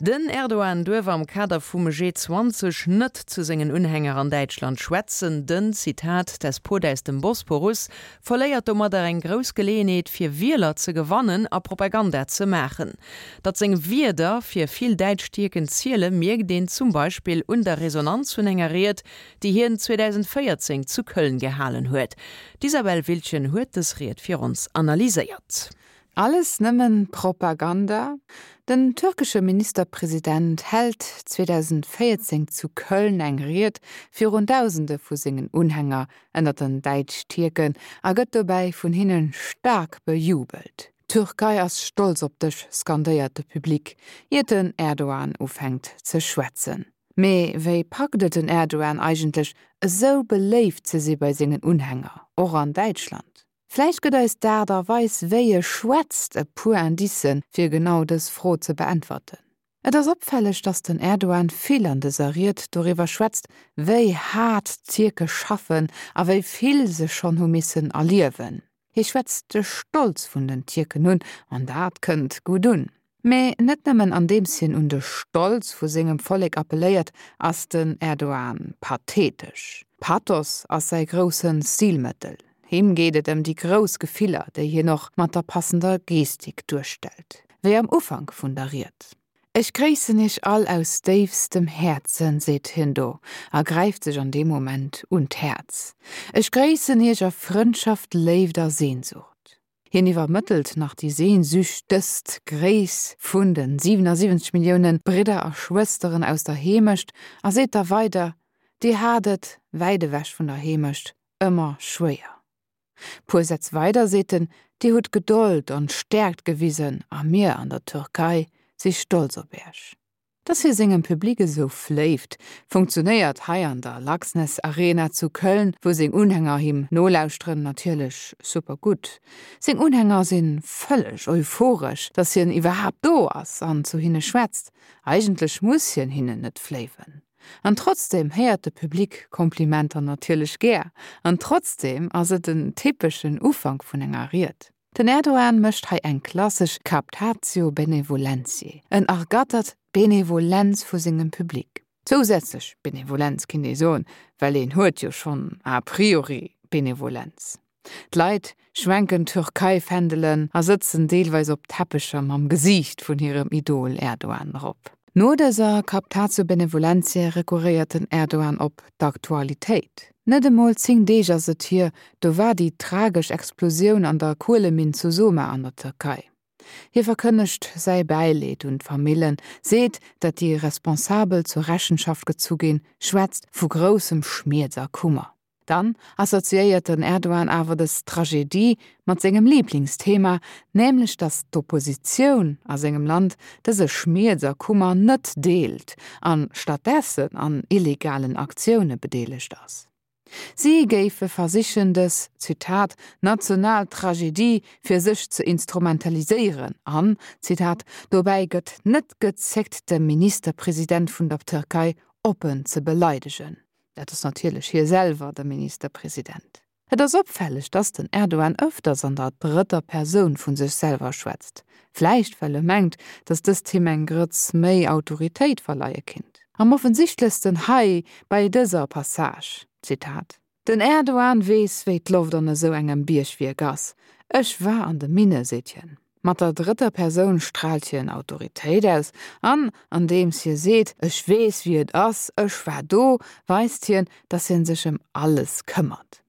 Den Erdogan duerf am Kader vum G20 net zu sengen Unhänger an Däitschland schwätzen. Den, Zitat, Despot aus dem Bosporus verléiert domadder eng grouss Geleeënheet fir Wieler ze gewannen a Propaganda ze maachen. Datt seng Wierder fir vill däitsch Tierken ziele mierkt een zum Beispill un der Resonanz vun enger Ried, déi hien 2014 zu Köln gehalen huet. D'Isabel Wiltgen huet dës Ried fir ons analyséiert. Alles nëmmen Propaganda? Den türkesche Ministerpresident hält 2014 zu Köln eng Ried virun Dausende vu sengen Unhänger ënner den Däitsch-Tierken a gëtt dobäi vun hinne staark bejubelt. D'Türkei ass stolz op dech, skandéiert de Public, iert den Erdogan ufänkt ze schwätzen. Mee wéi packt et den Erdogan eigentlech, esou beléift ze si bei sengen Unhänger, och an Däitschland? Vläicht gëtt eis d'Aart a Weis wéi e schwätzt e puer Indicen, fir genau dës Fro ze beäntwerten. Et ass opfälleg, datt den Erdogan vill an dëser Ried doriwwer schwätzt, wéi haart d'Tierke schaffen a wéi vill se schonn hu missen erliewen. Hie schwätzt de Stolz vun den Tierken un, an dat kënnt gutt un. Mee net nëmmen andeems hien un de Stolz vu sengem Vollek appelléiert, ass den Erdogan pathetesch. Pathos ass säi grousse Stilmëttel. Him geet et ëm déi grouss Gefiller, déi hien och mat der passender Gestik duerstellt. Wéi am Ufank vun der Ried. Ech gréissen iech all aus déifstem Häerzen, seet hien do a gräift sech an deem Moment un d'Häerz. Ech gréissen iech a Frëndschaft, Léift a Sehnsucht. Hien iwwermëttelt nach déi sehnsüchtest Gréiss vun de 77 Millioune Bridder a Schwësteren aus der Heemecht a seet da weider, Dir hat et, wäit ewech vun der Heemecht, ëmmer schwéier. Puer Sätz weider seet en, Dir hutt Gedold an Stäerkt gewisen a mir an der Türkei si stolz op Iech. Dass hie sengem Public esou fléift, funktionéiert hei an der Laxness Arena zu Köln, wou seng Unhänger him nolauschteren, natierlech super gutt. Seng Unhänger si vëlleg euphoresch, dass hien iwwerhaapt do ass an zu hinne schwätzt. Eigentlech muss hien hinnen net fléiwen. An trotzdeem héiert de Public Komplimenter natierlech gär. An trotzdeem ass et en typeschen Ufank vun enger Ried. Den Erdogan mécht hei eng klassesch Captatio benevolentiae, en ergattert d'Benevolenz vu sengem Public. Zousätzlech Benevolenz kinnt ee soen, well een huet jo schonn a priori Benevolenz. D'Leit schwenken Türkei-Fändelen a sëtzen deelweis op Teppecher mam Gesiicht vun hirem Idol Erdogan drop. No dëser Captatio benevolentiae rekurréiert den Erdogan op d'Aktualitéit. Net emol 10 Deeg ass et hier, do war déi tragesch Explosioun an der Kueleminn zu Soma an der Tierkei. Hie verkënnegt säi Bäileed un d'Famillen, seet, datt déi Responsabel zur Rechenschaft gezu ginn, schwätzt vu groussem Schmierz a Kummer. Dann assoziéiert den Erdogan awer dës Tragedie mat sengem Liblingsthema, nämlech datt d'Oppositioun a sengem Land dëse Schmierz a Kummer net deelt an stattdessen an illegalen Aktioune bedeelegt ass. Si géife versichen dës, Zitat, national Tragedie fir sech ze instrumentaliséieren an, Zitat, dobäi gëtt net gezéckt de Ministerpresident vun der Tërkei oppen ze beleidegen. Dat ass natierlech hie selwer, de Ministerpresident. Et ass opfälleg, dass den Erdogan ëfters an der drëtter Persoun vu sech selwer schwätzt. Vläicht well e mengt, dass dëst him eng Grëtz méi Autoritéit verleie kinnt. Am offensichtlechsten hei bei dëser Passage, Zitat, Den Erdogan weess, wéi d'Loft an esou engem Biergwierk ass. Ech war an de Minne, seet hien. Mat der drëtter Persoun straalt hien Autoritéit aus an andeems hie seet, ech weess wéi et ass, ech war do, weist hien, datt hien sech ëm alles këmmert.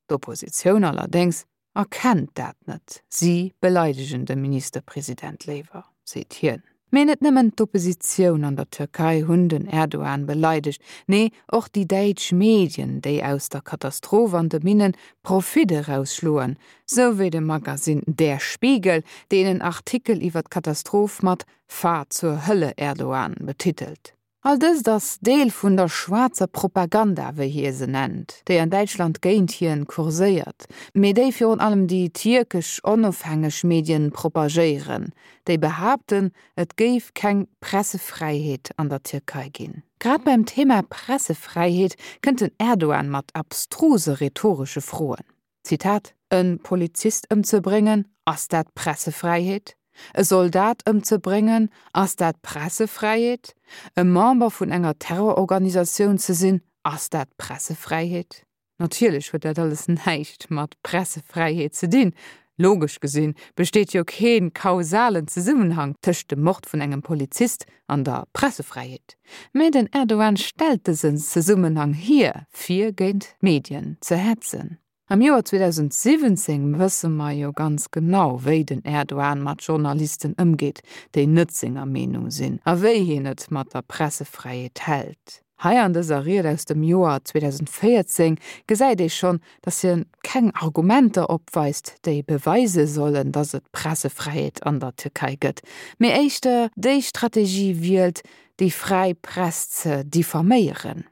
D'Oppositioun allerdéngs erkennt dat net, si beleidegen de Ministerpresident léiwer, seet hien. Mee net nëmmen d'Oppositioun an der Türkei hunn den Erdogan beleidegt, nee och déi däitsch Medien, déi aus der Katastroph an de Minnen Profit erausschloen, sou wéi de Magasinn Der Spiegel, deen en Artikel iwwer d'Katastroph mat Fahr zur Hölle, Erdogan betitelt. All dëst ass Deel vun der schwaarzer Propaganda, wéi hie se nennt, déi an Däitschland géint hien kurséiert, mee déi virun allem déi tierkesch onofhängeg Medien propagéieren, déi behaapten, et géif keng Pressefräiheet an der Tierkei ginn. Grad beim Thema Pressefräiheet kënnt den Erdogan mat abstruse rhetoresche Froen. Zitat, E Polizist ëmzebréngen, ass dat Pressefräiheet? E Soldat ëmzebréngen, ass dat Pressefräiheet? E Member vun enger Terrororganisatioun ze sinn, ass dat Pressefräiheet? Natierlech huet dat alles näischt mat Pressefräiheet ze dinn. Logesch gesinn besteet jo kee kausalen Zesummenhang tëscht dem Mord vun engem Polizist an der Pressefräiheet. Mä den Erdogan stellt dësen Zesummenhang hier, fir géint d'Medien ze hetzen. Am Joer 2017 wësse mer jo ganz genau, wéi den Erdogan mat Journalisten ëmgeet, déi net senger Meenung sinn, a wéi hien et mat der Pressefräiheet hält. Hei an dëser Ried aus dem Joer 2014 gesäit ee schonn, datt hien keng Argumenter opweist, déi beweise sollen, datt et Pressefräiheet an der Tierkei gëtt, mee éischter déi Strategie wielt, déi fräi Press ze diffaméieren.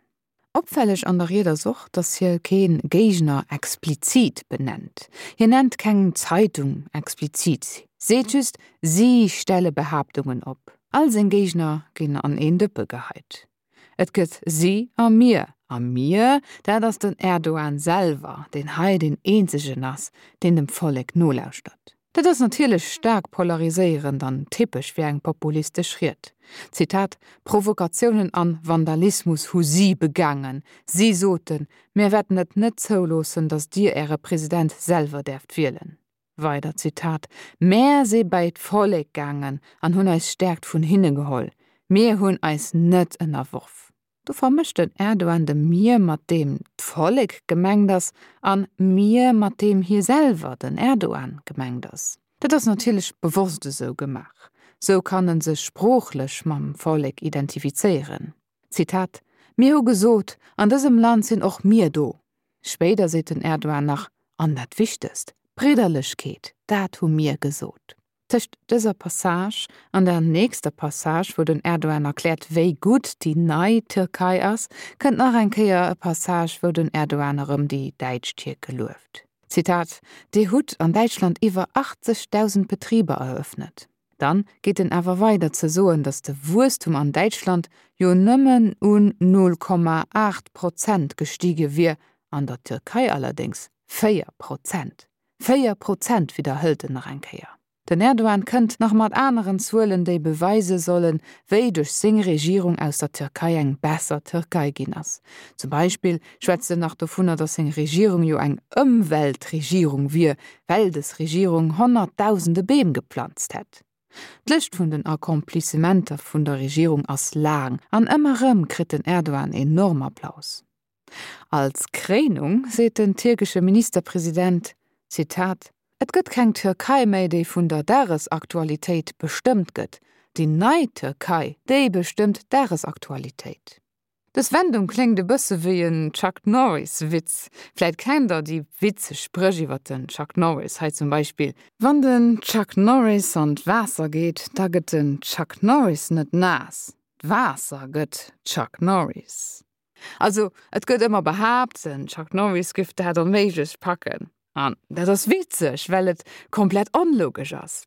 Opfälleg an der Ried ass och, datt hie kee Géigner explizit benennt. Hien nennt keng Zeitung explizit, seet just, si stelle Behaaptungen op. All seng Géigner ginn an een Dëppe geheit. Et gëtt si a mir. A mir, dat ass den Erdogan selwer, deen hei deen eenzegen ass, deen dem Vollek nolauschtert. Dat ass natierlech staark polariséierend an typesch fir eng populistesch Ried. Zitat, Provokatiounen an Vandalismus hu si begaangen. Si soten, mir wäerten et net zouloossen, datt dir äre President selwer däerft wielen. Weider Zitat, Mär si bäi d'Vollek gaangen an hunn eis Stäerkt vun hinne geholl. Mir hunn eis net ënnerworf. Do vermëscht den Erdogan de mir mat deem d'Vollek gemengt ass an mir mat deem hie selwer, den Erdogan, gemengt ass. Dat ass natierlech bewosst esou gemaach. Sou kann en sech sproochlech mam Vollek identifizéieren. Zitat, Mir hu gesot, an dësem Land sinn och mir do. Spéider seet den Erdogan nach, An dat Wichtegst, Bridderlechkeet, dat hu mir gesot. Tëscht dëser Passage an der nächster Passage, wou den Erdogan erkläert, wéi gutt déi nei Tierkei ass, kënnt nach eng Kéier e Passage, wou den Erdogan erëm déi däitsch Tierke lueft. Zitat, Dir hutt an Däitschland iwwer 80.000 Betriber eröffnet. Dann geet en awer weider ze soen, datt de Wuesstum an Däitschland jo nëmmen un 0,8 Prozent gestige wier, an der Tierkei allerdéngs 4 Prozent. 4 Prozent, widderhëlt en nach eng Kéier. Den Erdogan kënnt nach mat aneren Zuelen, déi beweise sollen, wéi duerch seng Regierung aus der Tierkei eng besser Tierkei ginn ass. Zum Beispill schwätzt en nach dovunner, datt seng Regierung jo eng Ëmweltregierung wier, well des Regierung honnertdausende Beem geplanzt hätt. D'Lëscht vun den Accomplissementer vun der Regierung ass laang an ëmmer erëm kritt den Erdogan enorm Applaus. Als Kréinung seet den tierkesche Ministerpresident, Zitat, Et gëtt keng Türkei méi, déi vun der Dagesaktualitéit bestëmmt gëtt. Déi nei Türkei, déi bestëmmt d'Dagesaktualitéit. Dës Wendung kléngt e bësse wéi en Chuck Norris Witz. Vläit kennt der déi witzeg Spréch iwwer den Chuck Norris, hei zum Beispill. Wann den Chuck Norris an d'Waasser geet, da gëtt den Chuck Norris net naass, d'Waasser gëtt Chuck Norris. Also et gëtt ëmmer behaapt, den Chuck Norris giff dat onméiglech packen. An dat ass witzeg, well et komplett onlogesch ass.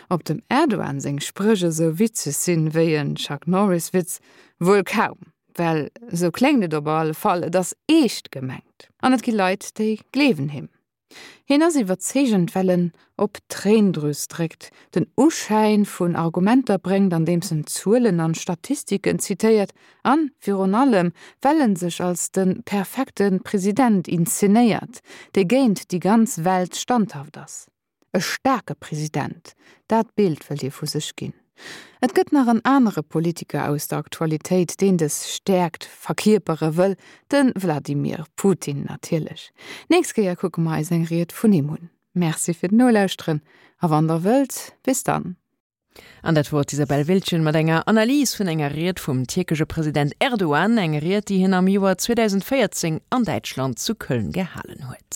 Ob dem Erdogan seng Spréch esou witzeg sinn wéi en Chuck Norris Witz? Wuel kaum, well esou kléngt et op alle Fall, et ass eescht gemengt. An et gi Leit, déi gleewen him. Hien ass iwwerzeegend, well en op d'Tréindrüs dréckt, den Uschäin vun Argumenter bréngt, andeems en Zuelen an Statistiken zitéiert, an virun allem, well en sech als de perfekte President inszenéiert, dee géint déi ganz Welt standhaft ass. E staarke President, dat Bild wëllt hie vu sech ginn. Et gëtt nach en anere Politiker aus der Aktualitéit, deen dës Stäerkt verkierpere wëll, de Wladimir Putin natierlech. Nächst Kéier kucke mer eis eng Ried vun him un. Merci fir d'Nolauschteren a wann der wëllt, bis dann. An dat wor d'Isabelle Wiltgen mat enger Analys vun enger Ried vum tierkesche President Erdogan, eng Ried, déi hien am Joer 2014 an Däitschland zu Köln gehalen huet.